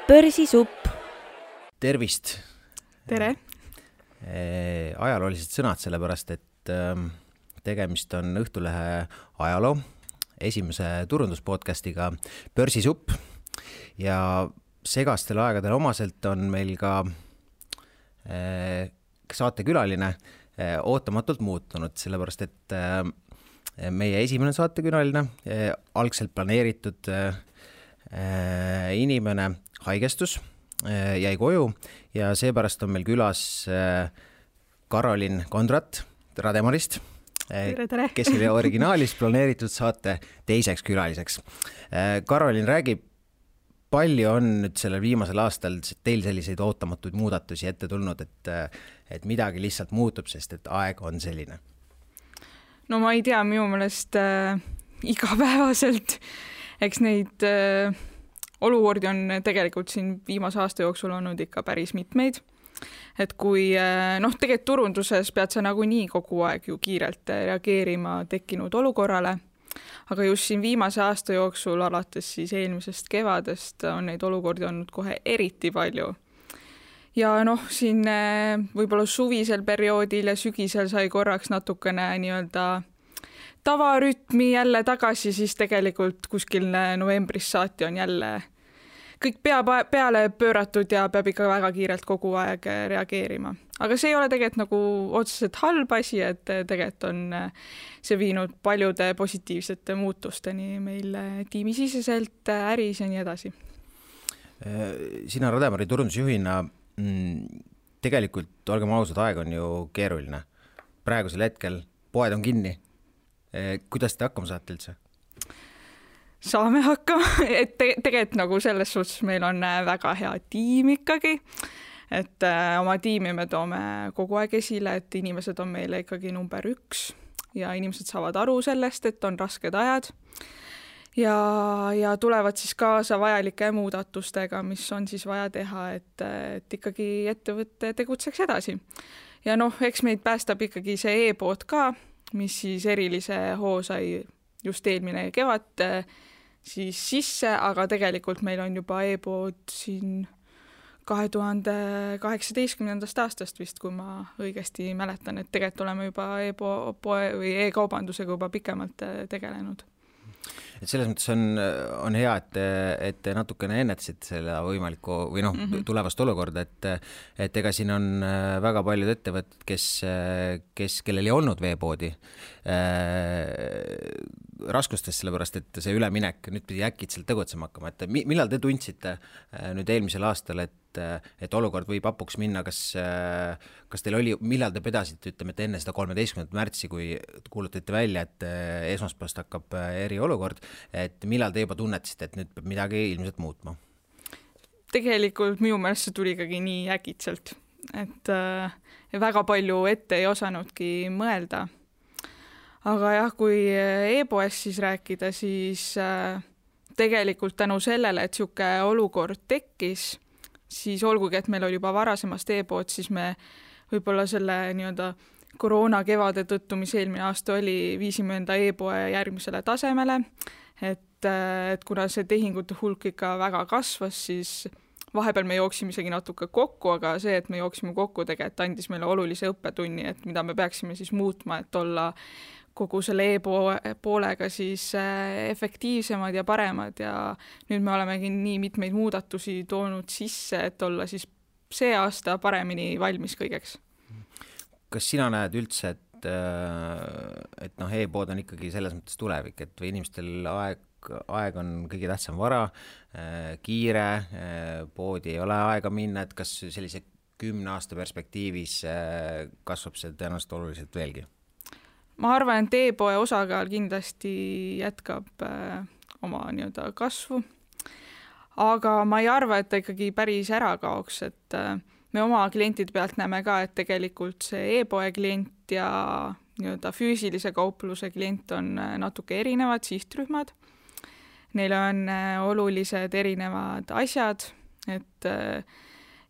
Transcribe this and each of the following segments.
Börsisupp. Tervist! Tere! Ajaloolised sõnad, sellepärast, et tegemist on Õhtulehe ajaloo esimese turunduspodcastiga Börsisupp ja segastel aegadel omaselt on meil ka saatekülaline ootamatult muutunud, sellepärast, et meie esimene saatekülaline, algselt planeeritud inimene haigestus, jäi koju ja seepärast on meil külas Karolin Kondrat Rademarist, tere. Kes oli originaalis planeeritud saate teiseks külaliseks. Karolin, räägib, palju on nüüd sellel viimasel aastal teil selliseid ootamatuid muudatusi ette tulnud, et midagi lihtsalt muutub, sest et aeg on selline? No ma ei tea, minu meelest igapäevaselt, eks neid olukordi on tegelikult siin viimase aasta jooksul olnud ikka päris mitmeid. Et kui tegelikult turunduses pead sa nagunii kogu aeg ju kiirelt reageerima tekkinud olukorrale, aga just siin viimase aasta jooksul, alates siis eelmisest kevadest, on neid olukordi olnud kohe eriti palju. Ja siin võib-olla suvisel perioodil ja sügisel sai korraks natukene nii-öelda tavarütmi jälle tagasi, siis tegelikult kuskil novembris saati on jälle kõik peale pööratud ja peab ikka väga kiirelt kogu aeg reageerima. Aga see ei ole tegelikult nagu otseselt halb asi, et tegelikult on see viinud paljude positiivsete muutusteni meil tiimisiseselt, äris ja nii edasi. Sina Rademari turundusjuhina tegelikult, olgem ausad, aeg on ju keeruline. Praegusel hetkel poed on kinni. Kuidas te hakkama saate üldse? Saame hakkama, et tegelikult nagu selles suhtes meil on väga hea tiim ikkagi, et oma tiimi me toome kogu aeg esile, et inimesed on meile ikkagi number 1 ja inimesed saavad aru sellest, et on rasked ajad ja tulevad siis kaasa vajalike muudatustega, mis on siis vaja teha, et ikkagi ettevõtte tegutseks edasi. Ja eks meid päästab ikkagi see e-pood ka, mis siis erilise hoo sai just eelmine kevad siis sisse, aga tegelikult meil on juba e-pood siin 2018. aastast vist, kui ma õigesti mäletan, et tegelikult oleme juba e-poe või e-kaubandusega juba pikemalt tegelenud. Et selles mõttes on hea, et te natukene ennetasid selle võimaliku või tulevast olukorda, et ega siin on väga paljud ettevõtted, kellel ei olnud veepoodi raskustest, sellepärast, et see üleminek nüüd pidi äkitselt tegutsema hakkama. Et millal te tundsite nüüd eelmisel aastal, et olukord võib hapuks minna, kas teil oli, millal te pedasite, ütleme, et enne seda 13. märtsi, kui kuulutate välja, et esmaspäevast hakkab eriolukord, et millal te juba tunnetasite, et nüüd peab midagi ilmselt muutma? Tegelikult minu meelest see tuli ikkagi nii äkitselt, et väga palju ette ei osanudki mõelda. Aga jah, kui e-poes siis rääkida, siis tegelikult tänu sellele, et siuke olukord tekkis, siis olgugi, et meil oli juba varasemast e-pood, siis me võib-olla selle nii-öelda koroona kevade tõttu, mis eelmine aasta oli, viisime enda e-poe järgmisele tasemele, et kuna see tehingute hulk ikka väga kasvas, siis vahepeal me jooksime isegi natuke kokku, aga see, et me jooksime kokku, tegelikult andis meile olulise õppetunni, et mida me peaksime siis muutma, et olla kogu selle e-poolega siis efektiivsemad ja paremad ja nüüd me olemegi nii mitmeid muudatusi toonud sisse, et olla siis see aasta paremini valmis kõigeks. Kas sina näed üldse, et e-pood on ikkagi selles mõttes tulevik, et või inimestel aeg on kõige tähtsam vara, kiire, poodi ei ole aega minna, et kas sellise 10 aasta perspektiivis kasvab see tõenäoliselt oluliselt veelgi? Ma arvan, et e-poe osakaal kindlasti jätkab oma nii-öelda kasvu, aga ma ei arva, et ta ikkagi päris ära kaoks, et me oma klientide pealt näeme ka, et tegelikult see e-poe klient ja nii-öelda füüsilise kaupluse klient on natuke erinevad sihtrühmad. Neil on olulised erinevad asjad, et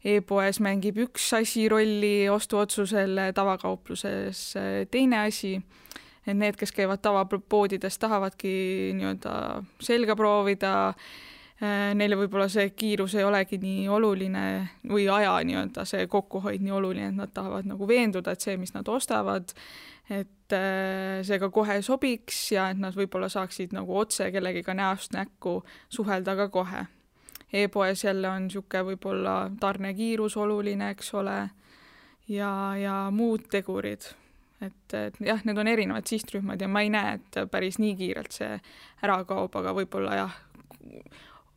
e-poes mängib üks asi rolli ostuotsusel, tavakaupluses teine asi. Need, kes käivad tavapoodides, tahavadki nii-öelda selga proovida, neile võib-olla see kiirus ei olegi nii oluline või aja nii-öelda see kokkuhoid nii oluline, et nad tahavad nagu veenduda, et see, mis nad ostavad, et see ka kohe sobiks ja et nad võib-olla saaksid nagu otse kellegiga näost näkku suhelda ka kohe. E-poes jälle on niisugune võib-olla tarnekiirus oluline, eks ole, ja muud tegurid. Et jah, need on erinevad sihtrühmad ja ma ei näe, et päris nii kiirelt see ära kaob, aga võib-olla jah,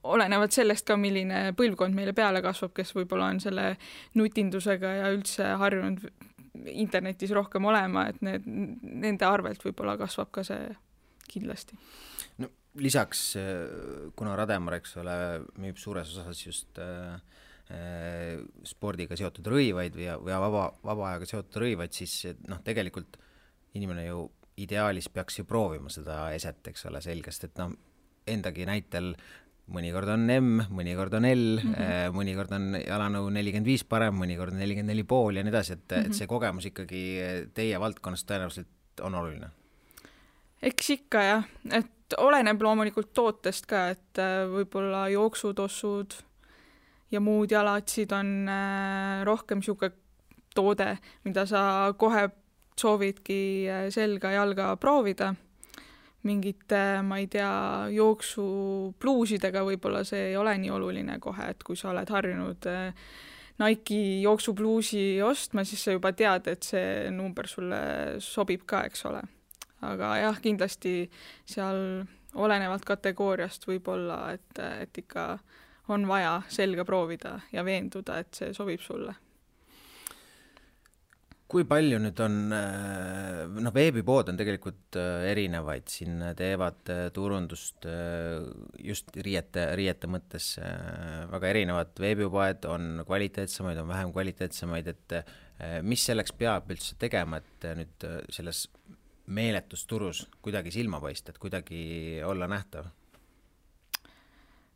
olenevad sellest ka, milline põlvkond meile peale kasvab, kes võib-olla on selle nutindusega ja üldse harjunud internetis rohkem olema, et nende arvelt võib-olla kasvab ka see kindlasti. No, lisaks, kuna Rademar, eks ole, müüb suures osas just spordiga seotud rõivaid või vaba ajaga seotud rõivaid, siis tegelikult inimene ju ideaalis peaks ju proovima seda eset, eks ole, selgest, et endagi näitel mõnikord on M, mõnikord on L, mõnikord on jalanõu 45 parem, mõnikord 44,5 ja nii edasi, et see kogemus ikkagi teie valdkonnas tõenäoliselt on oluline. Eks ikka jah, et oleneb loomulikult tootest ka, et võib-olla jooksutossud ja muud jalatsid on rohkem niisugune toode, mida sa kohe soovidki selga jalga proovida. Mingite, ma ei tea, jooksupluusidega võib-olla see ei ole nii oluline kohe, et kui sa oled harjunud Nike jooksupluusi ostma, siis sa juba tead, et see number sulle sobib ka, eks ole. Aga jah, kindlasti seal olenevalt kategooriast võib-olla, et ikka on vaja selga proovida ja veenduda, et see sobib sulle. Kui palju nüüd on, veebipood on tegelikult erinevaid, siin teevad turundust just riiete mõttes väga erinevad veebipoed, on kvaliteetsemaid, on vähem kvaliteetsemaid, et mis selleks peab üldse tegema, et nüüd selles meeletusturus kuidagi silma paista, et kuidagi olla nähtav?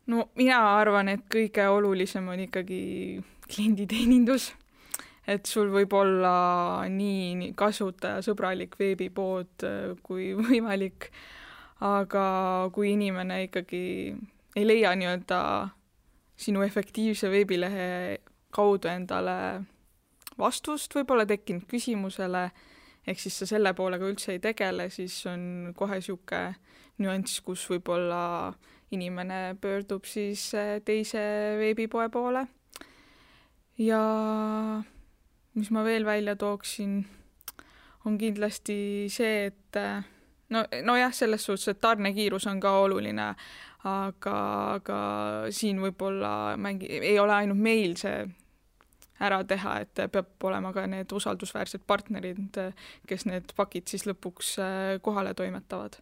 No mina arvan, et kõige olulisem on ikkagi klienditeenindus. Et sul võib olla nii kasutajasõbralik veebipood kui võimalik, aga kui inimene ikkagi ei leia nii-öelda sinu efektiivse veebilehe kaudu endale vastust, võib-olla tekkinud küsimusele, ehk siis sa selle poolega üldse ei tegele, siis on kohe niisugune nüanss, kus võib-olla inimene pöördub siis teise veebipoe poole. Ja mis ma veel välja tooksin, on kindlasti see, et jah, selles suhtes, et tarnekiirus on ka oluline, aga siin võib-olla ei ole ainult meil see ära teha, et peab olema ka need usaldusväärsed partnerid, kes need pakid siis lõpuks kohale toimetavad.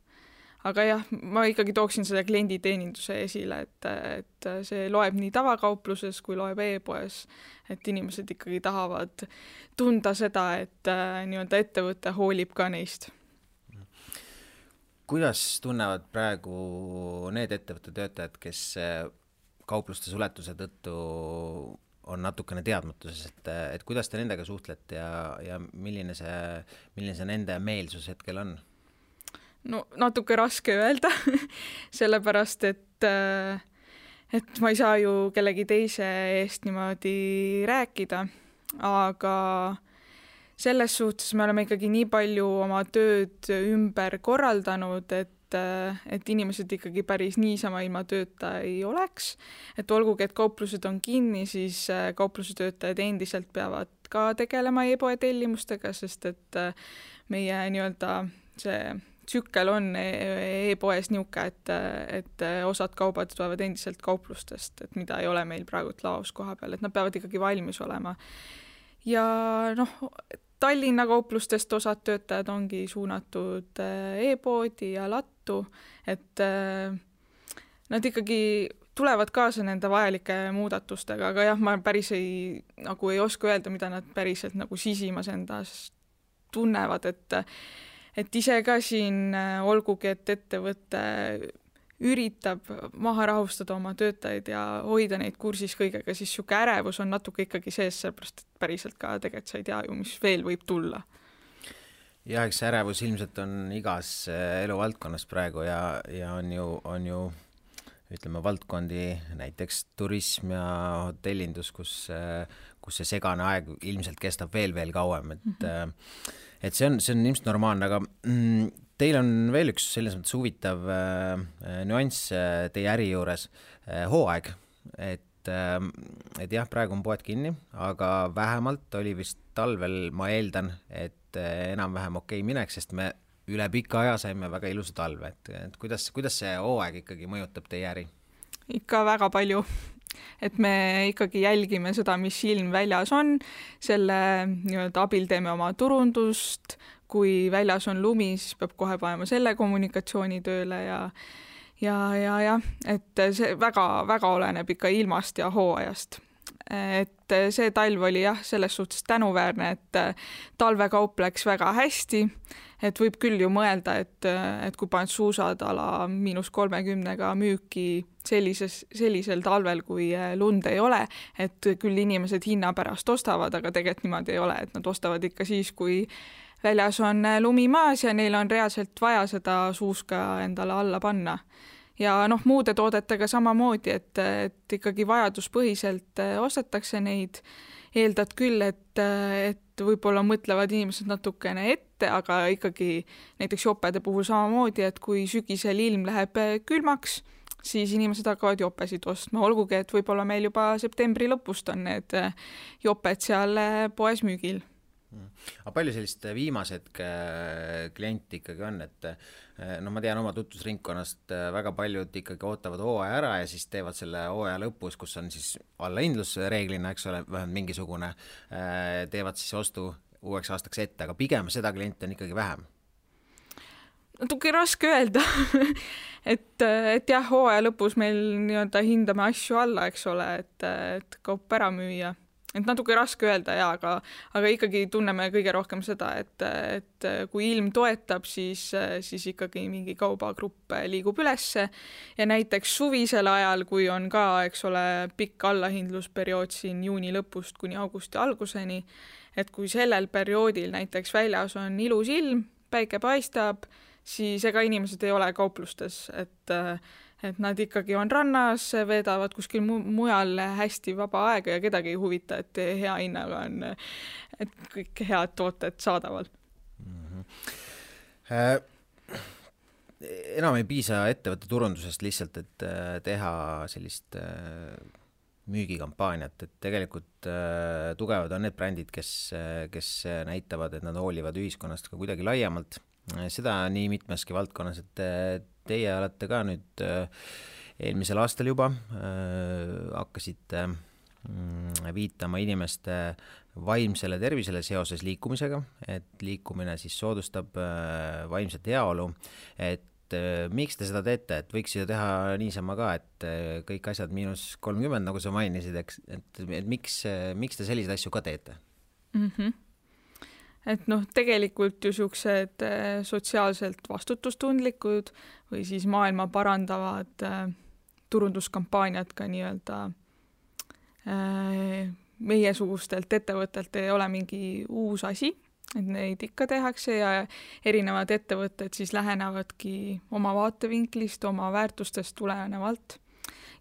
Aga jah, ma ikkagi tooksin seda klienditeeninduse esile, et see loeb nii tavakaupluses kui loeb e-poes, et inimesed ikkagi tahavad tunda seda, et nii-öelda ettevõte hoolib ka neist. Kuidas tunnevad praegu need ettevõtte töötajad, kes kaupluste suletuse tõttu on natukene teadmatuses, et kuidas te nendega suhtlete ja milline see nende meelsus hetkel on? No natuke raske öelda, sellepärast, et ma ei saa ju kellegi teise eest niimoodi rääkida, aga selles suhtes me oleme ikkagi nii palju oma tööd ümber korraldanud, et inimesed ikkagi päris niisama ilma tööta ei oleks. Et olgugi, et kauplused on kinni, siis kaupluse töötajad endiselt peavad ka tegelema e-poe tellimustega, sest et meie nii-öelda see tsükkel on e-poes niuke, et osad kaubad tulevad endiselt kauplustest, et mida ei ole meil praegu laos koha peal, et nad peavad ikkagi valmis olema. Ja Tallinna kauplustest osad töötajad ongi suunatud e-poodi ja lattu, et nad ikkagi tulevad kaasa nende vajalike muudatustega, aga jah, ma päris ei oska öelda, mida nad päriselt sisimas endas tunnevad, et ise ka siin, olgugi, et ettevõte üritab maha rahustada oma töötajaid ja hoida neid kursis kõigega, siis siuke ärevus on natuke ikkagi sees, sellepärast, et päriselt ka tegelikult sa ei tea ju, mis veel võib tulla. Ja eks ärevus ilmselt on igas eluvaldkonnas praegu ja on ju ütleme, valdkondi, näiteks turism ja hotellindus, kus see segane aeg ilmselt kestab veel kauem, et see on ilmselt normaalne, aga teil on veel üks selles mõttes huvitav nüanss teie äri juures, hooaeg, et jah, praegu on poed kinni, aga vähemalt oli vist talvel, ma eeldan, et enam-vähem okei mineks, sest me üle pika aja saime väga ilusa talve, et kuidas see hooaeg ikkagi mõjutab teie äri? Ikka väga palju, et me ikkagi jälgime seda, mis ilm väljas on, selle nii-öelda abil teeme oma turundust, kui väljas on lumi, siis peab kohe panema selle kommunikatsiooni tööle ja, et see väga oleneb ikka ilmast ja hooajast. Et see talv oli jah, selles suhtes tänuväärne, et talvekaup läks väga hästi, et võib küll ju mõelda, et kui paned suusad ala -30 müüki sellisel talvel, kui lund ei ole, et küll inimesed hinna pärast ostavad, aga tegelikult niimoodi ei ole, et nad ostavad ikka siis, kui väljas on lumi maas ja neil on reaalselt vaja seda suuska endale alla panna. Ja muude toodetega samamoodi, et ikkagi vajaduspõhiselt ostetakse neid, eeldad küll, et võib-olla mõtlevad inimesed natukene ette, aga ikkagi näiteks jopede puhul samamoodi, et kui sügisel ilm läheb külmaks, siis inimesed hakkavad jopesid ostma, olgugi, et võib-olla meil juba septembri lõpust on need joped seal poes müügil. Aga palju sellist viimased klienti ikkagi on, et ma tean oma tutvusringkonnast väga paljud ikkagi ootavad hooaja ära ja siis teevad selle hooaja lõpus, kus on siis allahindlus reeglina, eks ole, vähemalt mingisugune, teevad siis ostu uueks aastaks ette, aga pigem seda klienti on ikkagi vähem. Natuke raske öelda, et jah, hooaja lõpus meil nii-öelda hindame asju alla, eks ole, et kaup ära müüa. Et natuke raske öelda, aga ikkagi tunneme kõige rohkem seda, et kui ilm toetab, siis ikkagi mingi kaubagrupp liigub ülesse ja näiteks suvisel ajal, kui on ka, eks ole, pikk allahindlusperiood siin juuni lõpust kuni augusti alguseni, et kui sellel perioodil näiteks väljas on ilus ilm, päike paistab, siis ega inimesed ei ole kauplustes, et nad ikkagi on rannas, veedavad kuskil mujal hästi vaba aega ja kedagi ei huvita, et hea hinnaga on et kõik head tooted saadaval. Enam ei piisa ettevõtte turundusest lihtsalt, et teha sellist müügikampaaniat, et tegelikult tugevad on need brändid, kes näitavad, et nad hoolivad ühiskonnast ka kuidagi laiemalt. Seda nii mitmeski valdkonnas, et teie olete ka nüüd eelmisel aastal juba hakkasite viitama inimeste vaimsele tervisele seoses liikumisega, et liikumine siis soodustab vaimset heaolu, et miks te seda teete, et võiks ju teha niisama ka, et kõik asjad -30, nagu sa mainisid, et miks te selliseid asju ka teete? Et tegelikult ju siuksed sotsiaalselt vastutustundlikud või siis maailma parandavad turunduskampaaniad ka nii-öelda meiesugustelt ettevõttelt ei ole mingi uus asi, et neid ikka tehakse ja erinevad ettevõtted siis lähenevadki oma vaatevinklist, oma väärtustest tulenevalt.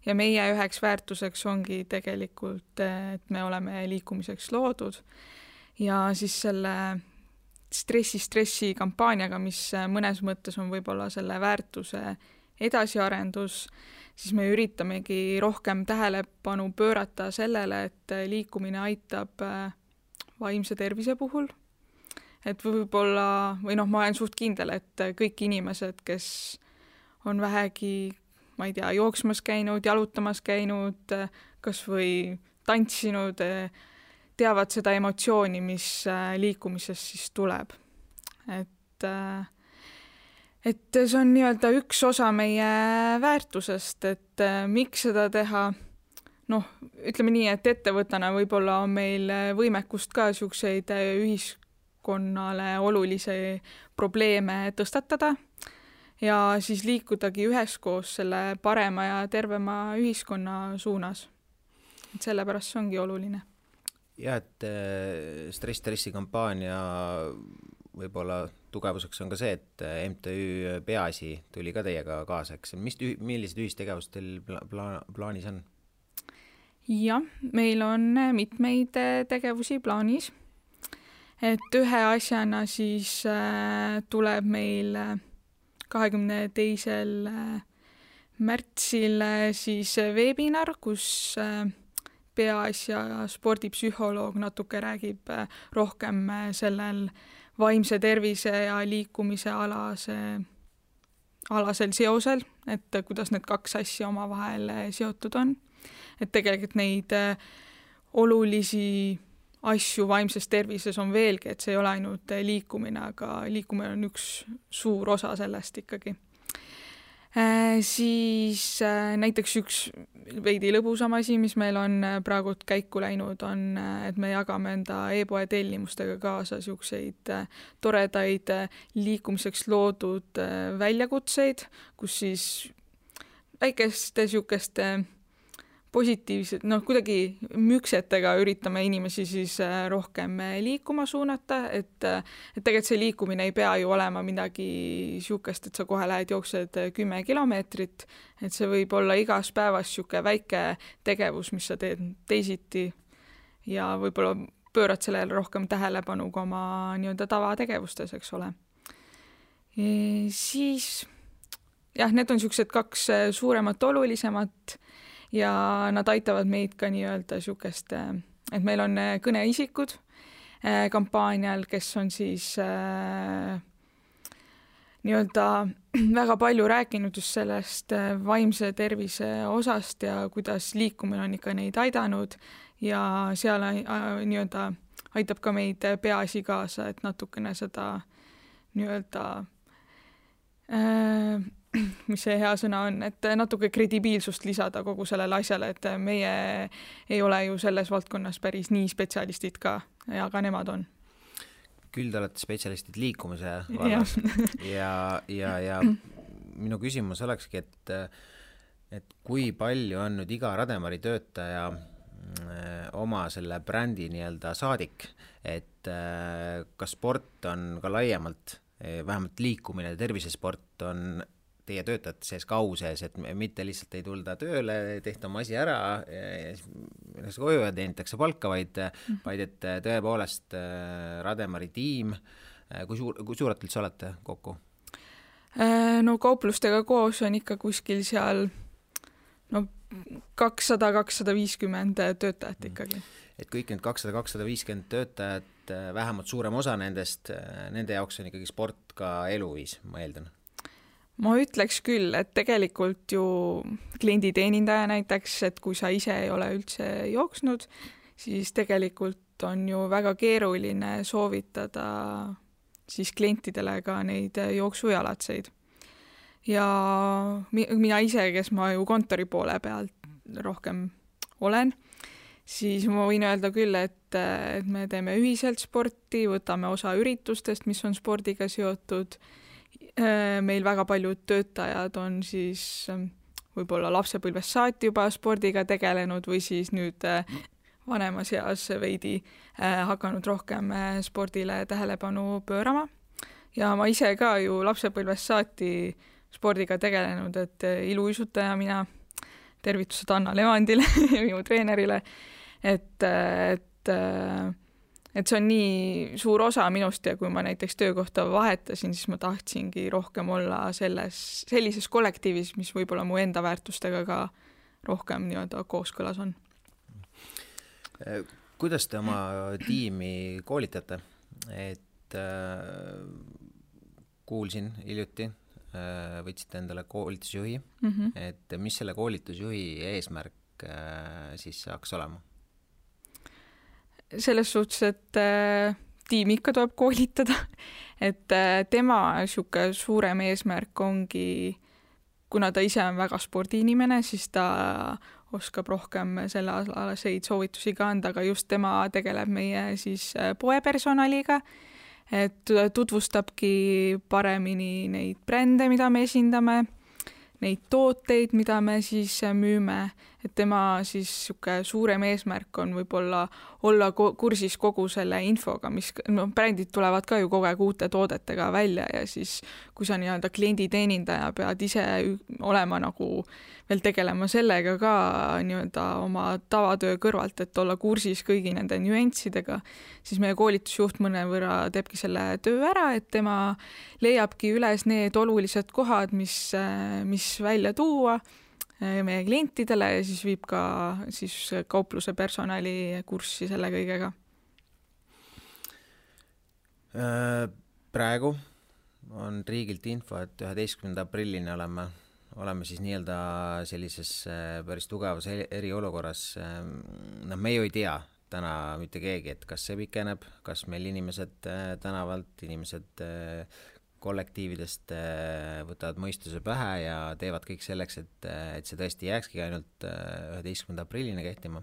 Ja meie üheks väärtuseks ongi tegelikult, et me oleme liikumiseks loodud. Ja siis selle stressi kampaaniaga, mis mõnes mõttes on võib-olla selle väärtuse edasiarendus, siis me üritamegi rohkem tähelepanu pöörata sellele, et liikumine aitab vaimse tervise puhul. Et võib-olla, või ma olen suht kindel, et kõik inimesed, kes on vähegi, ma ei tea, jooksmas käinud, jalutamas käinud, kas või tantsinud, teavad seda emotsiooni, mis liikumisest siis tuleb. Et see on nii-öelda üks osa meie väärtusest, et miks seda teha, ütleme nii, et ettevõttena võib-olla on meil võimekust ka siukseid ühiskonnale olulisi probleeme tõstatada ja siis liikudagi üheskoos selle parema ja tervema ühiskonna suunas. Et sellepärast see ongi oluline. Ja, et stressi kampaania võib-olla tugevuseks on ka see, et MTÜ Peaasi tuli ka teiega kaasa, eks millised ühistegevused teil plaanis on? Jah, meil on mitmeid tegevusi plaanis, et ühe asjana siis tuleb meil 22. märtsil siis webinar, kus Peaasja spordipsühholoog natuke räägib rohkem sellel vaimse tervise ja liikumise alasel seosel, et kuidas need kaks asja omavahel seotud on. Et tegelikult neid olulisi asju vaimses tervises on veelgi, et see ei ole ainult liikumine, aga liikumine on üks suur osa sellest ikkagi. Siis näiteks üks veidi lõbusam asi, mis meil on praegu käiku läinud, on, et me jagame enda e-poe tellimustega kaasa siukseid toredaid liikumiseks loodud väljakutseid, kus siis väikeste siukeste positiivsed, kuidagi müksetega üritame inimesi siis rohkem liikuma suunata, et tegelikult see liikumine ei pea ju olema midagi siukest, et sa kohe lähed jooksed 10 kilomeetrit, et see võib olla igas päevas siuke väike tegevus, mis sa teed teisiti ja võib-olla pöörad sellele rohkem tähelepanu kui oma nii-öelda tavategevustes, eks ole. Siis jah, need on siuksed kaks suuremat olulisemat ja nad aitavad meid ka nii-öelda siukest, et meil on kõneisikud kampaanial, kes on siis nii-öelda väga palju rääkinud just sellest vaimse tervise osast ja kuidas liikumine on ikka neid aidanud ja seal nii-öelda aitab ka meid Peaasi kaasa, et natukene seda nii-öelda mis see hea sõna on, et natuke kredibiilsust lisada kogu sellele asjale, et meie ei ole ju selles valdkonnas päris nii spetsialistid ka, aga nemad on. Küll te olete spetsialistid liikumise vallas ja minu küsimus olekski, et kui palju on nüüd iga Rademari töötaja oma selle brändi nii-öelda saadik, et kas sport on ka laiemalt, vähemalt liikumine ja tervisesport on teie töötajate sees ka au sees, et mitte lihtsalt ei tulda tööle, tehta oma asi ära, koju ja teenitakse palka, vaid et tõepoolest Rademari tiim, kui suurelt üldse olete kokku? No kauplustega koos on ikka kuskil seal 200-250 töötajat ikkagi. Et kõik need 200-250 töötajat, vähemalt suurem osa nendest, nende jaoks on ikkagi sport ka eluviis, ma eeldan. Ma ütleks küll, et tegelikult ju klienditeenindaja näiteks, et kui sa ise ei ole üldse jooksnud, siis tegelikult on ju väga keeruline soovitada siis klientidele ka neid jooksujalatseid. Ja mina ise, kes ma ju kontori poole pealt rohkem olen, siis ma võin öelda küll, et me teeme ühiselt sporti, võtame osa üritustest, mis on spordiga seotud. Meil väga paljud töötajad on siis võib-olla lapsepõlvest saati juba spordiga tegelenud või siis nüüd vanemas eas veidi hakanud rohkem spordile tähelepanu pöörama. Ja ma ise ka ju lapsepõlvest saati spordiga tegelenud, et iluuisutaja mina, tervitused Anna Levandile ja minu treenerile, et see on nii suur osa minust ja kui ma näiteks töökohta vahetasin, siis ma tahtsingi rohkem olla sellises kollektiivis, mis võib-olla mu enda väärtustega ka rohkem nii-öelda kooskõlas on. Kuidas te oma tiimi koolitate? Et kuulsin hiljuti, võtsite endale koolitusjuhi, et mis selle koolitusjuhi eesmärk siis saaks olema? Selles suhtes, et tiimi ikka tuleb koolitada, et tema siuke suurem eesmärk ongi, kuna ta ise on väga spordiinimene, siis ta oskab rohkem selle alaseid soovitusi ka anda, aga just tema tegeleb meie siis poepersonaliga, et tutvustabki paremini neid brände, mida me esindame, neid tooteid, mida me siis müüme, et tema siis suurem eesmärk on võib-olla olla kursis kogu selle infoga, mis brändid tulevad ka ju kogu aeg uute toodetega välja ja siis kui sa nii-öelda klienditeenindaja pead ise olema nagu veel tegelema sellega ka nii-öelda oma tavatöö kõrvalt, et olla kursis kõigi nende nüanssidega, siis meie koolitusjuht mõnevõrra teebki selle töö ära, et tema leiabki üles need olulised kohad, mis välja tuua meie klientidele ja siis viib ka siis kaupluse personali kurssi selle kõigega. Praegu on riigilt info, et 11. aprillini oleme siis nii-öelda sellises päris tugevas eriolukorras. Me ju ei tea täna mitte keegi, et kas see pikeneb, kas meil inimesed tänavalt, inimesed kollektiividest võtavad mõistuse pähe ja teevad kõik selleks, et see tõesti jääkski ainult 11. aprillini kehtima.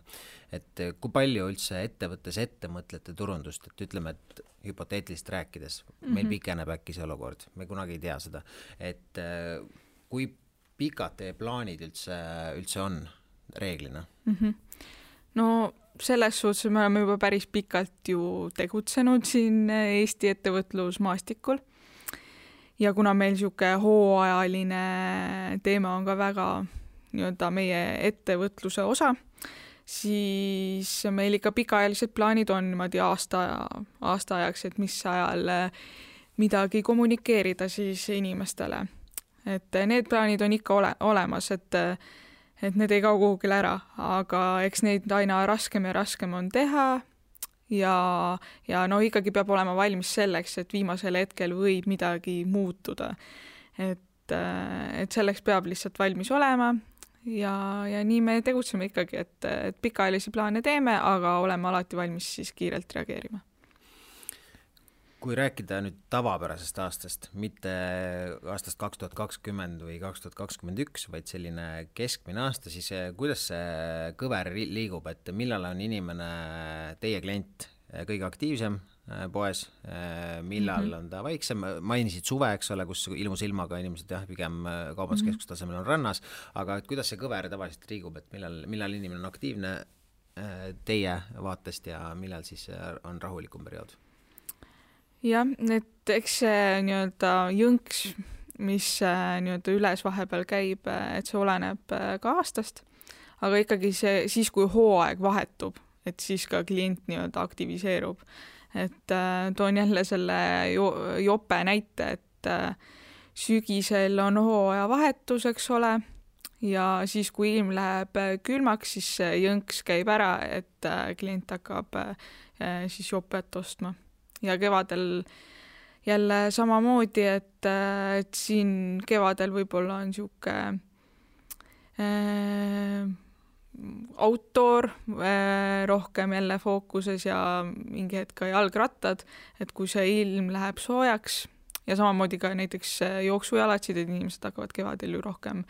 Et kui palju üldse ettevõttes ette mõtlete turundust, et ütleme, et hüpoteetilist rääkides, meil pikeneb äkki see olukord, me kunagi ei tea seda, et kui pikad teie plaanid üldse on reeglina? No selles suhtes me oleme juba päris pikalt ju tegutsenud siin Eesti ettevõtlusmaastikul. Ja kuna meil siuke hooajaline teema on ka väga nii-öelda meie ettevõtluse osa, siis meil ikka pikaajalised plaanid on niimoodi aasta ajaks, et mis ajal midagi kommunikeerida siis inimestele. Et need plaanid on ikka olemas, et need ei kao kuhugile ära, aga eks neid aina raskem ja raskem on teha. Ja no ikkagi peab olema valmis selleks, et viimasel hetkel võib midagi muutuda. Et selleks peab lihtsalt valmis olema ja nii me tegutseme ikkagi, et pikaajalisi plaane teeme, aga oleme alati valmis siis kiirelt reageerima. Kui rääkida nüüd tavapärasest aastast, mitte aastast 2020 või 2021, vaid selline keskmine aasta, siis kuidas see kõver liigub, et millal on inimene, teie klient, kõige aktiivsem poes, millal on ta vaiksem, mainisid suve, eks ole, kus ilmus ilmaga inimesed pigem kaubanduskeskuse tasemel on rannas, aga et kuidas see kõver tavaliselt liigub, et millal inimene on aktiivne teie vaatest ja millal siis on rahulikum periood? Jah, et eks see nii-öelda jõnks, mis nii-öelda üles vahepeal käib, et see oleneb ka aastast, aga ikkagi siis, kui hooaeg vahetub, et siis ka klient nii-öelda aktiviseerub. Et toon jälle selle jope näite, et sügisel on hooaja vahetus, eks ole, ja siis, kui ilm läheb külmaks, siis jõnks käib ära, et klient hakkab siis jopet ostma. Ja kevadel jälle samamoodi, et siin kevadel võib-olla on siuke outdoor rohkem jälle fookuses ja mingi hetk ka jalgrattad, et kui see ilm läheb soojaks ja samamoodi ka näiteks jooksujalatsid, et inimesed hakkavad kevadel ju rohkem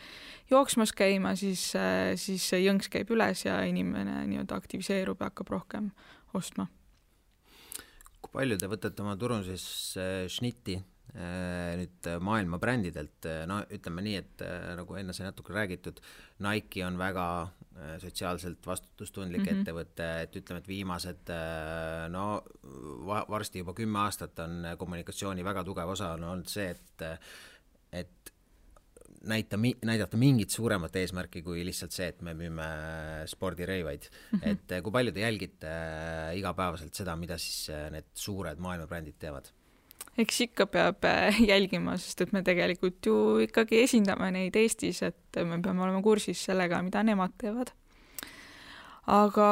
jooksmas käima, siis see jõnks käib üles ja inimene nii-öelda aktiviseerub ja hakkab rohkem ostma. Kui palju te võtate oma turunduses šnitti nüüd maailma brändidelt? No ütleme nii, et nagu enne sai natuke räägitud, Nike on väga sotsiaalselt vastutustundlik ettevõte, et ütleme, et viimased varsti juba 10 aastat on kommunikatsiooni väga tugev osa on olnud see, et näidata mingit suuremat eesmärki kui lihtsalt see, et me müüme spordirõivaid. Et kui palju te jälgite igapäevaselt seda, mida siis need suured maailmabrändid teevad? Eks ikka peab jälgima, sest et me tegelikult ju ikkagi esindame neid Eestis, et me peame olema kursis sellega, mida nemad teevad. Aga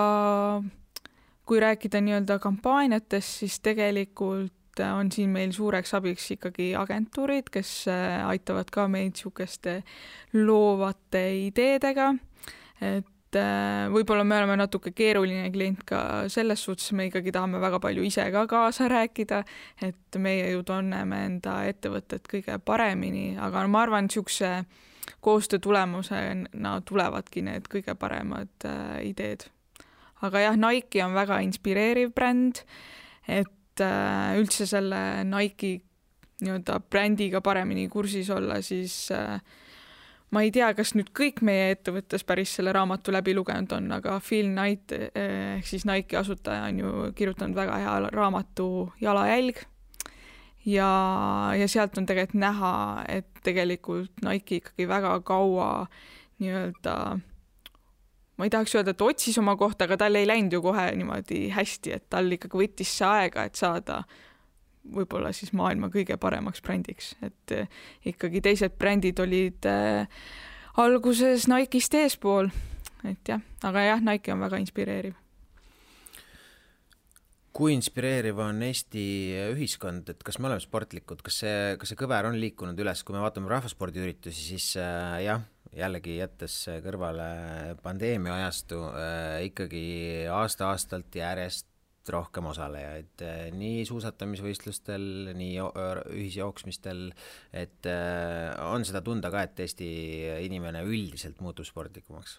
kui rääkida nii-öelda kampaaniatest, siis tegelikult on siin meil suureks abiks ikkagi agentuurid, kes aitavad ka meid siukeste loovate ideedega, et võib-olla me oleme natuke keeruline klient ka selles suhtes, me ikkagi tahame väga palju ise ka kaasa rääkida, et meie ju tunneme enda ettevõtet kõige paremini, aga ma arvan, siukse koostöö tulemusena tulevadki need kõige paremad ideed. Aga jah, Nike on väga inspireeriv bränd, et üldse selle Nike nii-öelda brändiga paremini kursis olla, siis ma ei tea, kas nüüd kõik meie ettevõttes päris selle raamatu läbi lugenud on, aga Phil Knight ehk siis Nike'i asutaja on ju kirjutanud väga hea raamatu Jalajälg ja sealt on tegelikult näha, et tegelikult Nike ikkagi väga kaua nii-öelda, ma ei tahaks öelda, et otsis oma kohta, aga tal ei läinud ju kohe niimoodi hästi, et tal ikkagi võttis see aega, et saada võib-olla siis maailma kõige paremaks brändiks, et ikkagi teised brändid olid alguses Nike'ist eespool, et jah, aga jah, Nike on väga inspireeriv. Kui inspireeriv on Eesti ühiskond, et kas me oleme sportlikud, kas see kõver on liikunud üles, kui me vaatame rahvaspordiüritusi, siis jah, jällegi jättes kõrvale pandeemia ajastu, ikkagi aasta-aastalt järjest rohkem osalejaid, nii suusatamisvõistlustel, nii ühisjooksmistel, et on seda tunda ka, et Eesti inimene üldiselt muutub sportlikumaks?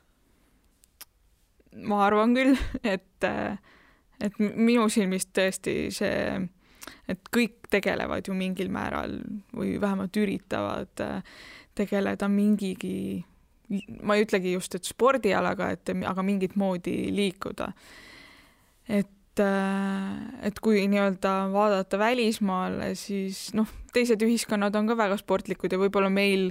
Ma arvan küll, et minu silmist tõesti see, et kõik tegelevad ju mingil määral või vähemalt üritavad tegeleda mingigi, ma ei ütlegi just, et spordialaga, aga mingit moodi liikuda. Et kui nii-öelda vaadata välismaale, siis teised ühiskonnad on ka väga sportlikud ja võib-olla meil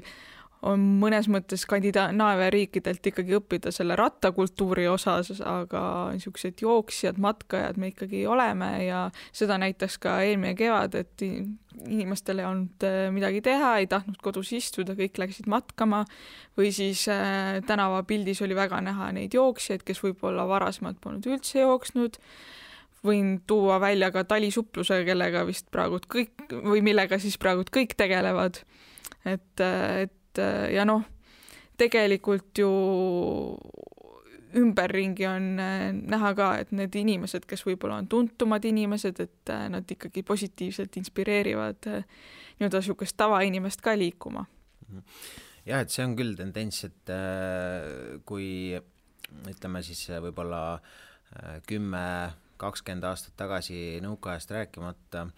on mõnes mõttes Skandinaavia riikidelt ikkagi õppida selle rattakultuuri osas, aga niisugused jooksjad, matkajad me ikkagi oleme ja seda näitaks ka eelmine kevad, et inimestel ei olnud midagi teha, ei tahtnud kodus istuda, kõik läksid matkama või siis tänavapildis oli väga näha neid jooksjaid, kes võib-olla varasemalt polnud üldse jooksnud. Võin tuua välja ka talisupluse, kellega vist praegu kõik või millega siis praegu kõik tegelevad. Et ja tegelikult ju ümberringi on näha ka, et need inimesed, kes võib-olla on tuntumad inimesed, et nad ikkagi positiivselt inspireerivad nii-öelda niisugust tavainimest ka liikuma. Jah, et see on küll tendents, et kui ütleme siis võib-olla 10-20 aastat tagasi nõukaajast rääkimata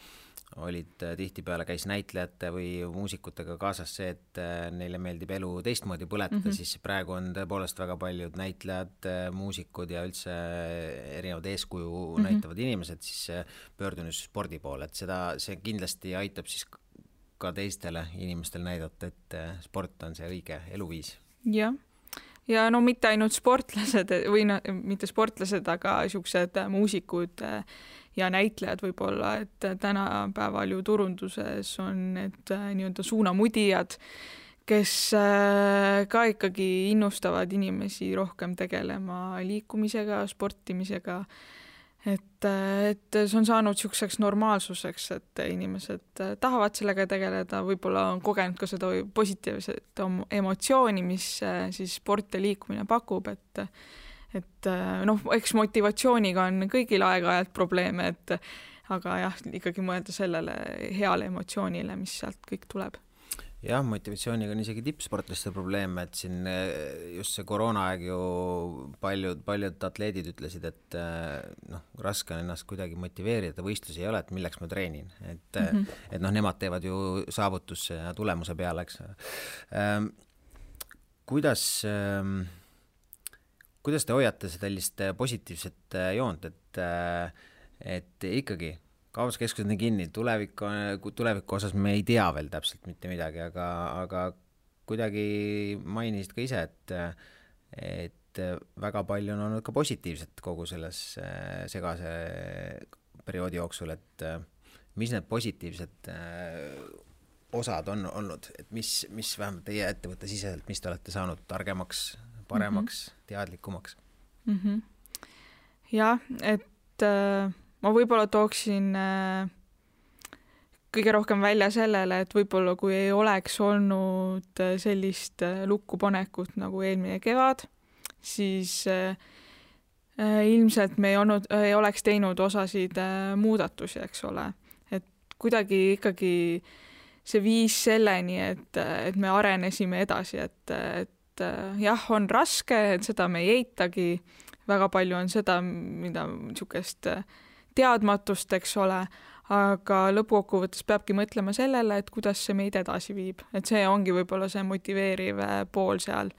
olid tihtipeale käis näitlejate või muusikutega kaasas see, et neile meeldib elu teistmoodi põletada, siis praegu on tõepoolest väga paljud näitlejad, muusikud ja üldse erinevad eeskuju näitavad inimesed siis pöördunud spordi poole, et see kindlasti aitab siis ka teistele inimestel näidata, et sport on see õige eluviis. Jah. Ja mitte ainult sportlased või mitte sportlased, aga niisugused muusikud ja näitlejad võib-olla, et tänapäeval ju turunduses on need nii-öelda suunamudijad, kes ka ikkagi innustavad inimesi rohkem tegelema liikumisega, sportimisega, et see on saanud niisuguseks normaalsuseks, et inimesed tahavad sellega tegeleda, võib-olla on kogenud ka seda positiivset emotsiooni, mis siis sport ja liikumine pakub, et eks motivatsiooniga on kõigil aeg-ajalt probleeme, aga jah, ikkagi mõelda sellele heale emotsioonile, mis sealt kõik tuleb. Jah, motivatsiooniga on isegi tippsportlaste probleeme, et siin just see koroonaaeg ju paljud atleedid ütlesid, et raske on ennast kuidagi motiveerida, võistlusi ei ole, et milleks ma treenin, et nemad teevad ju saavutusse ja tulemuse peale, eks. Kuidas te hoiate sellist positiivset joont, et ikkagi kaubaskeskused on kinni, tuleviku osas me ei tea veel täpselt mitte midagi, aga kuidagi mainisid ka ise, et väga palju on olnud ka positiivset kogu selles segase perioodi jooksul, et mis need positiivsed osad on olnud, et mis vähemalt teie ettevõtte siseselt, mis te olete saanud targemaks, paremaks, teadlikumaks? Jah, et ma võib-olla tooksin kõige rohkem välja sellele, et võib-olla kui ei oleks olnud sellist lukkupanekut nagu eelmine kevad, siis ilmselt me ei oleks teinud osasid muudatusi, eks ole. Et kuidagi ikkagi see viis selleni, et me arenesime edasi, et jah, on raske, et seda me ei eitagi, väga palju on seda, mida niisugust teadmatust, eks ole, aga lõpukokkuvõttes peabki mõtlema sellele, et kuidas see meid edasi viib, et see ongi võib-olla see motiveeriv pool seal.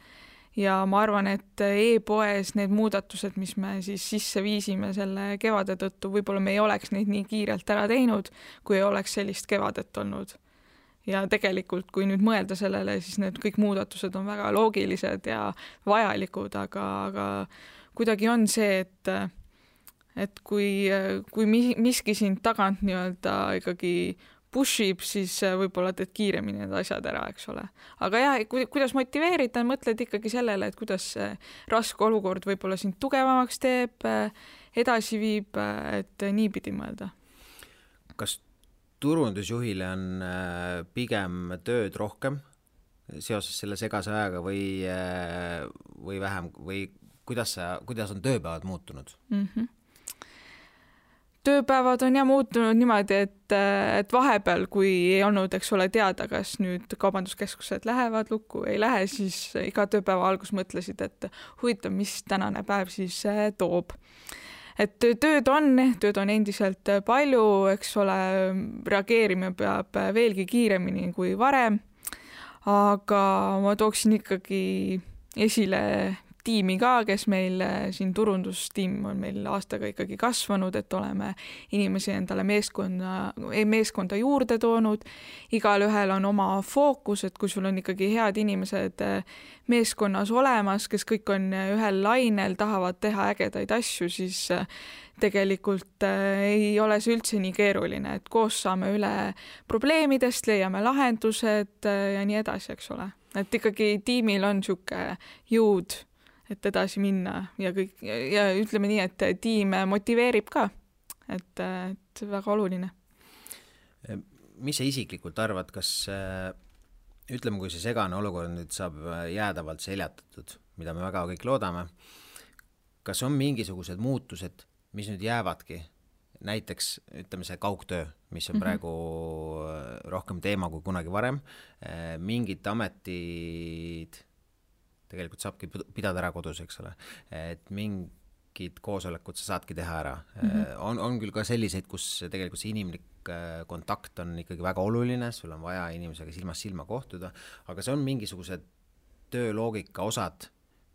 Ja ma arvan, et e-poes need muudatused, mis me siis sisse viisime selle kevade tõttu, võib-olla me ei oleks neid nii kiirelt ära teinud, kui ei oleks sellist kevadet olnud. Ja tegelikult, kui nüüd mõelda sellele, siis need kõik muudatused on väga loogilised ja vajalikud, aga kuidagi on see, et kui miski sind tagant nii-öelda ikkagi pushib, siis võib-olla teed kiiremini need asjad ära, eks ole. Aga jah, kuidas motiveerida, mõtled ikkagi sellele, et kuidas see raske olukord võib-olla sind tugevamaks teeb, edasi viib, et niipidi mõelda. Kas turundusjuhile on pigem tööd rohkem seoses selle segase ajaga või vähem või kuidas on tööpäevad muutunud? Tööpäevad on muutunud niimoodi, et vahepeal, kui ei olnud, eks ole, teada, kas nüüd kaubanduskeskused lähevad lukku, ei lähe, siis iga tööpäeva algus mõtlesid, et huvitav, mis tänane päev siis toob. Et tööd on endiselt palju, eks ole, reageerima peab veelgi kiiremini kui varem, aga ma tooksin ikkagi esile tiimi ka, kes meil siin turundustiim on meil aastaga ikkagi kasvanud, et oleme inimesi endale meeskonda juurde toonud. Igal ühel on oma fookus, et kui sul on ikkagi head inimesed meeskonnas olemas, kes kõik on ühel lainel, tahavad teha ägedaid asju, siis tegelikult ei ole see üldse nii keeruline, et koos saame üle probleemidest, leiame lahendused ja nii edasi, eks ole. Et ikkagi tiimil on siuke jõud, et edasi minna ja kõik, ja ütleme nii, et tiim motiveerib ka, et väga oluline. Mis sa isiklikult arvad, kas ütleme, kui see segane olukord nüüd saab jäädavalt seljatatud, mida me väga kõik loodame, kas on mingisugused muutused, mis nüüd jäävadki, näiteks ütleme see kaugtöö, mis on praegu rohkem teema kui kunagi varem, mingid ametid tegelikult saabki pidada ära kodus, eks ole, et mingid koosolekud sa saadki teha ära. On küll ka selliseid, kus tegelikult see inimlik kontakt on ikkagi väga oluline, sul on vaja inimesega silmast silma kohtuda, aga see on mingisugused tööloogika osad,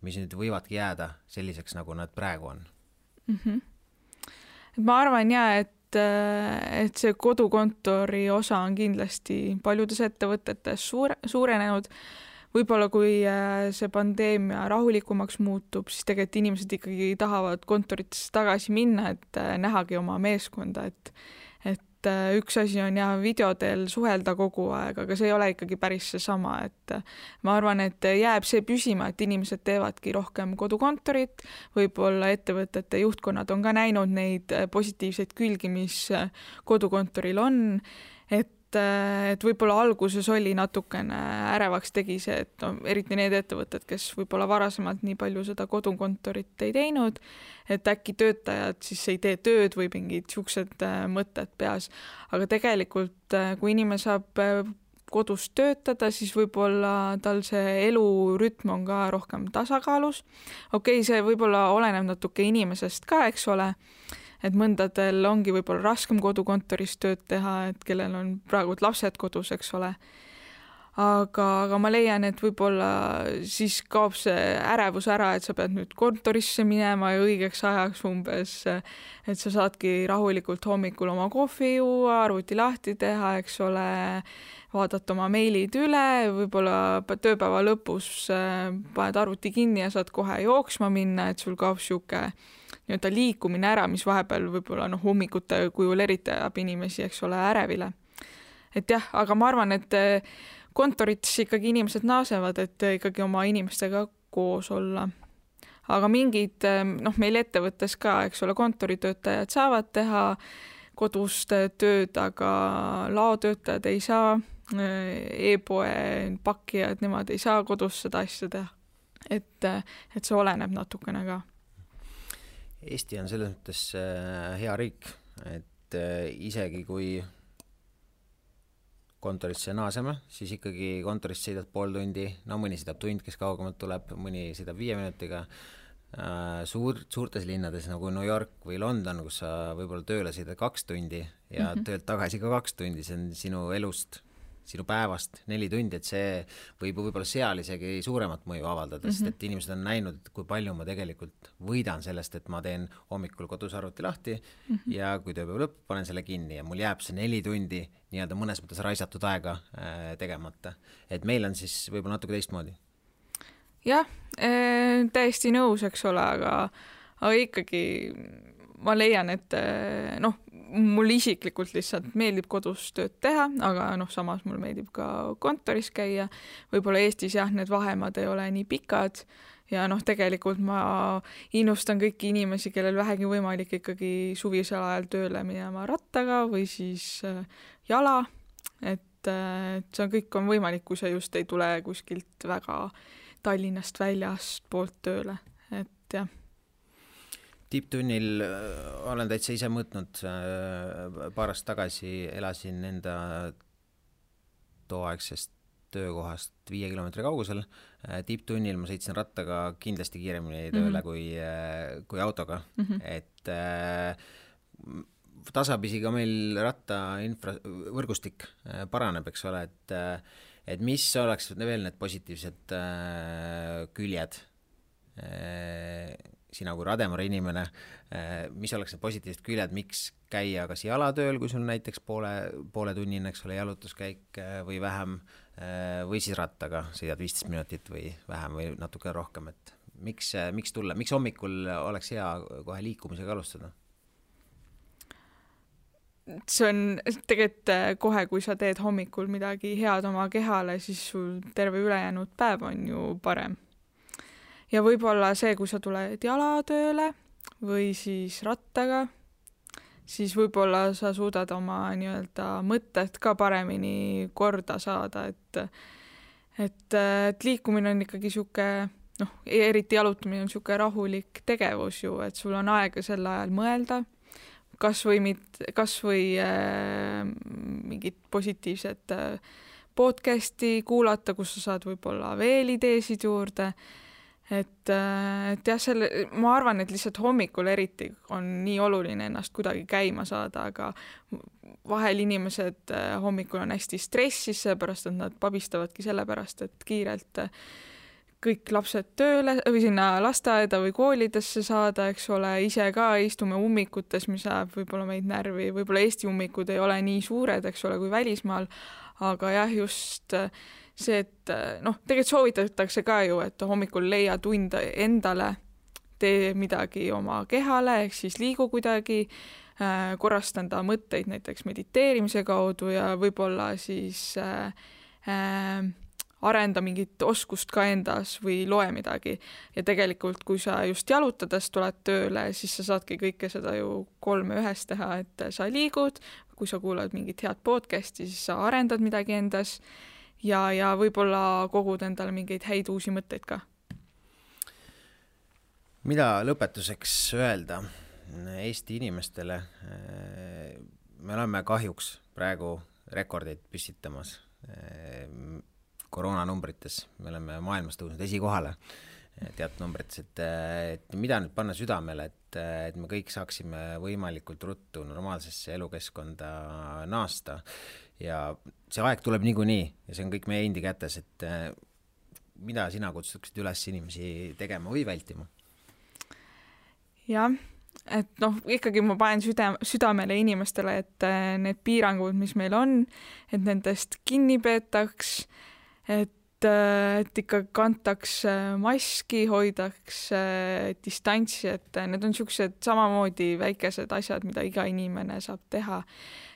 mis nüüd võivadki jääda selliseks, nagu nad praegu on. Ma arvan et see kodukontori osa on kindlasti paljudes ettevõtetes suurenenud. Võib-olla kui see pandeemia rahulikumaks muutub, siis tegelikult inimesed ikkagi tahavad kontoritesse tagasi minna, et nähagi oma meeskonda, et üks asi on videodel suhelda kogu aeg, aga see ei ole ikkagi päris seesama, et ma arvan, et jääb see püsima, et inimesed teevadki rohkem kodukontorit, võib-olla ettevõtete juhtkonnad on ka näinud neid positiivseid külgi, mis kodukontoril on, et võib-olla alguses oli natukene ärevaks tegi see, et eriti need ettevõtted, kes võib-olla varasemalt nii palju seda kodukontorit ei teinud, et äkki töötajad siis ei tee tööd või mingid siuksed mõtted peas. Aga tegelikult, kui inimene saab kodus töötada, siis võib-olla tal see elurütm on ka rohkem tasakaalus. Okei, see võib-olla oleneb natuke inimesest ka, eks ole, et mõndadel ongi võib-olla raskem kodukontoris tööd teha, et kellel on praegu lapsed kodus, eks ole. Aga ma leian, et võib-olla siis kaob see ärevus ära, et sa pead nüüd kontorisse minema ja õigeks ajaks umbes, et sa saadki rahulikult hommikul oma kohvi juua, arvuti lahti teha, eks ole, vaadata oma meilid üle, võib-olla tööpäeva lõpus paned arvuti kinni ja saad kohe jooksma minna, et sul kaob siuke nii-öelda liikumine ära, mis vahepeal võib-olla hommikute kujul eriti ajab inimesi, eks ole, ärevile. Et jah, aga ma arvan, et kontorites ikkagi inimesed naasevad, et ikkagi oma inimestega koos olla. Aga mingid, meil ettevõttes ka, eks ole, kontoritöötajad saavad teha kodust tööd, aga laotöötajad ei saa, e-poe pakkijad, nemad ei saa kodus seda asja teha. Et see oleneb natukene ka. Eesti on selles mõttes hea riik, et isegi kui kontorisse naaseme, siis ikkagi kontorist sõidad pool tundi, mõni sõidab tund, kes kaugemalt tuleb, mõni sõidab 5 minutiga, suurtes linnades nagu New York või London, kus sa võib-olla tööle sõidad 2 tundi ja töölt tagasi ka 2 tundi, see on sinu elust, sinu päevast 4 tundi, et see võib võib-olla seal isegi suuremat mõju avaldada, sest et inimesed on näinud, kui palju ma tegelikult võidan sellest, et ma teen hommikul kodus arvuti lahti ja kui tööpäev lõpp, panen selle kinni ja mul jääb see 4 tundi nii-öelda mõnes mõttes raisatud aega tegemata. Et meil on siis võib-olla natuke teistmoodi. Jah, täiesti nõus, eks ole, aga ikkagi ma leian, et mul isiklikult lihtsalt meeldib kodus tööd teha, aga samas mul meeldib ka kontoris käia. Võib-olla Eestis jah, need vahemad ei ole nii pikad ja tegelikult ma innustan kõiki inimesi, kellel vähegi võimalik ikkagi suvisel ajal tööle minema rattaga või siis jala, et see kõik on võimalik, kui sa just ei tule kuskilt väga Tallinnast väljast poolt tööle, et jah. Tipptunnil olen täitsa ise mõõtnud, paar aastat tagasi elasin enda tooaegsest töökohast 5 kilomeetri kaugusel. Tipptunnil ma sõitsin rattaga kindlasti kiiremini tööle kui autoga. Et tasapisi ka meil võrgustik paraneb, eks ole, et mis oleks veel need positiivsed küljed sina kui Rademari inimene, mis oleks need positiivsed küljed, miks käia kas jalatööl, kui sul näiteks poole tunnine, eks ole, jalutuskäik või vähem, või siis rattaga sõidad 15 minutit või vähem või natuke rohkem, et miks tulla, miks hommikul oleks hea kohe liikumisega alustada? See on tegelikult kohe, kui sa teed hommikul midagi head oma kehale, siis sul terve ülejäänud päev on ju parem. Ja võib-olla see, kui sa tuled jalatööle või siis rattaga, siis võib-olla sa suudad oma nii-öelda mõtted ka paremini korda saada, et liikumine on ikkagi siuke, eriti jalutamine on siuke rahulik tegevus ju, et sul on aega sel ajal mõelda, kas või mingit positiivset podcasti kuulata, kus sa saad võib-olla veel ideesid juurde. Et jah, ma arvan, et lihtsalt hommikul eriti on nii oluline ennast kuidagi käima saada, aga vahel inimesed hommikul on hästi stressis, seepärast, et nad pabistavadki sellepärast, et kiirelt kõik lapsed tööle või sinna lasteaeda või koolidesse saada, eks ole, ise ka istume ummikutes, mis ajab võib-olla meid närvi, võib-olla Eesti ummikud ei ole nii suured, eks ole, kui välismaal, aga jah, just see, et tegelikult soovitatakse ka ju, et hommikul leia tund endale, tee midagi oma kehale, ehk siis liigu kuidagi, korrastanda mõtteid näiteks mediteerimise kaudu ja võib-olla siis arenda mingit oskust ka endas või loe midagi. Ja tegelikult, kui sa just jalutades tuled tööle, siis sa saadki kõike seda ju 3 ühes teha, et sa liigud, kui sa kuulad mingit head podcasti, siis sa arendad midagi endas ja võib-olla kogud endale mingeid häid uusi mõtteid ka. Mida lõpetuseks öelda Eesti inimestele? Me oleme kahjuks praegu rekordeid püstitamas koroonanumbrites. Me oleme maailmas tõusnud esikohale teatud numbrites, et mida nüüd panna südamele, et me kõik saaksime võimalikult ruttu normaalsesse elukeskkonda naasta. Ja see aeg tuleb niikuinii ja see on kõik meie endi kätes, et mida sina kutsutaksid üles inimesi tegema või vältima? Jah, et ikkagi ma panen südamele inimestele, et need piirangud, mis meil on, et nendest kinni peetaks, et ikka kantaks maski, hoidaks distantsi, et need on siuksed samamoodi väikesed asjad, mida iga inimene saab teha.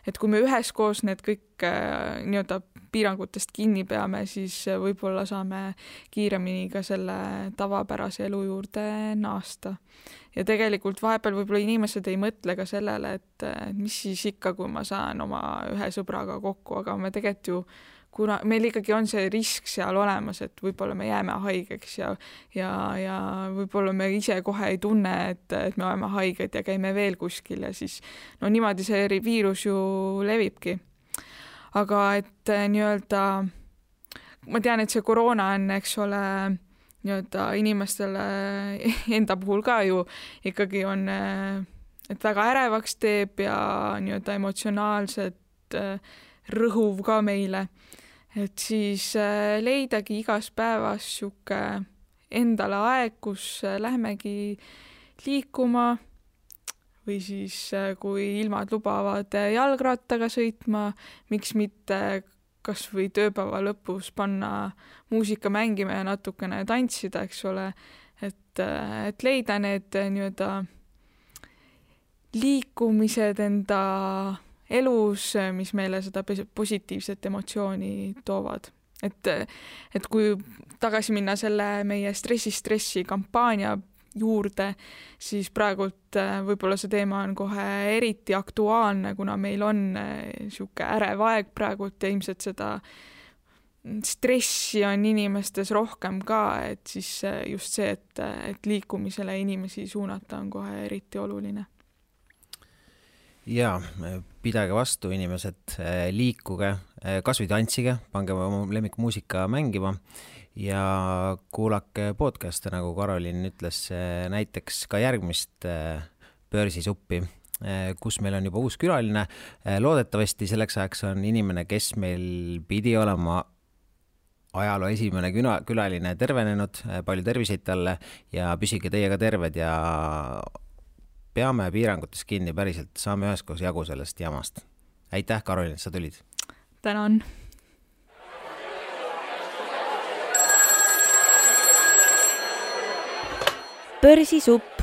Et kui me üheskoos need kõik nii-öelda piirangutest kinni peame, siis võib-olla saame kiiremini ka selle tavapärase elu juurde naasta. Ja tegelikult vahepeal võib-olla inimesed ei mõtle ka sellele, et mis siis ikka, kui ma saan oma ühe sõbraga kokku, aga me tegelikult ju kuna meil ikkagi on see risk seal olemas, et võib-olla me jääme haigeks ja võib-olla me ise kohe ei tunne, et me oleme haiged ja käime veel kuskil ja siis niimoodi see viirus ju levibki. Aga et nii-öelda, ma tean, et see koroona on, eks ole, nii-öelda inimestele enda puhul ka ju ikkagi on, et väga ärevaks teeb ja nii-öelda emotsionaalselt rõhuv ka meile. Et siis leidagi igas päevas sihuke endale aeg, kus lähmegi liikuma või siis kui ilmad lubavad jalgrattaga sõitma, miks mitte kas või tööpäeva lõpus panna muusika mängima ja natukene tantsida, eks ole, et leida need nii-öelda liikumised enda elus, mis meile seda positiivset emotsiooni toovad. Et kui tagasi minna selle meie stressi kampaania juurde, siis praegult võib-olla see teema on kohe eriti aktuaalne, kuna meil on sihuke ärev aeg praegult ja ilmselt seda stressi on inimestes rohkem ka, et siis just see, et liikumisele inimesi suunata on kohe eriti oluline. Jaa, pidage vastu inimesed, liikuge, kas või tantsige, pange oma lemmikmuusika mängima ja kuulake podcast'e, nagu Karolin ütles, näiteks ka järgmist Börsisuppi, kus meil on juba uus külaline. Loodetavasti selleks ajaks on inimene, kes meil pidi olema ajaloo esimene külaline, tervenenud, palju terviseid talle ja püsige teiega terved ja peame piirangutes kinni päriselt, saame üheskoos jagu sellest jamast. Aitäh, Karolin, et sa tulid. Tänan. Börsisupp.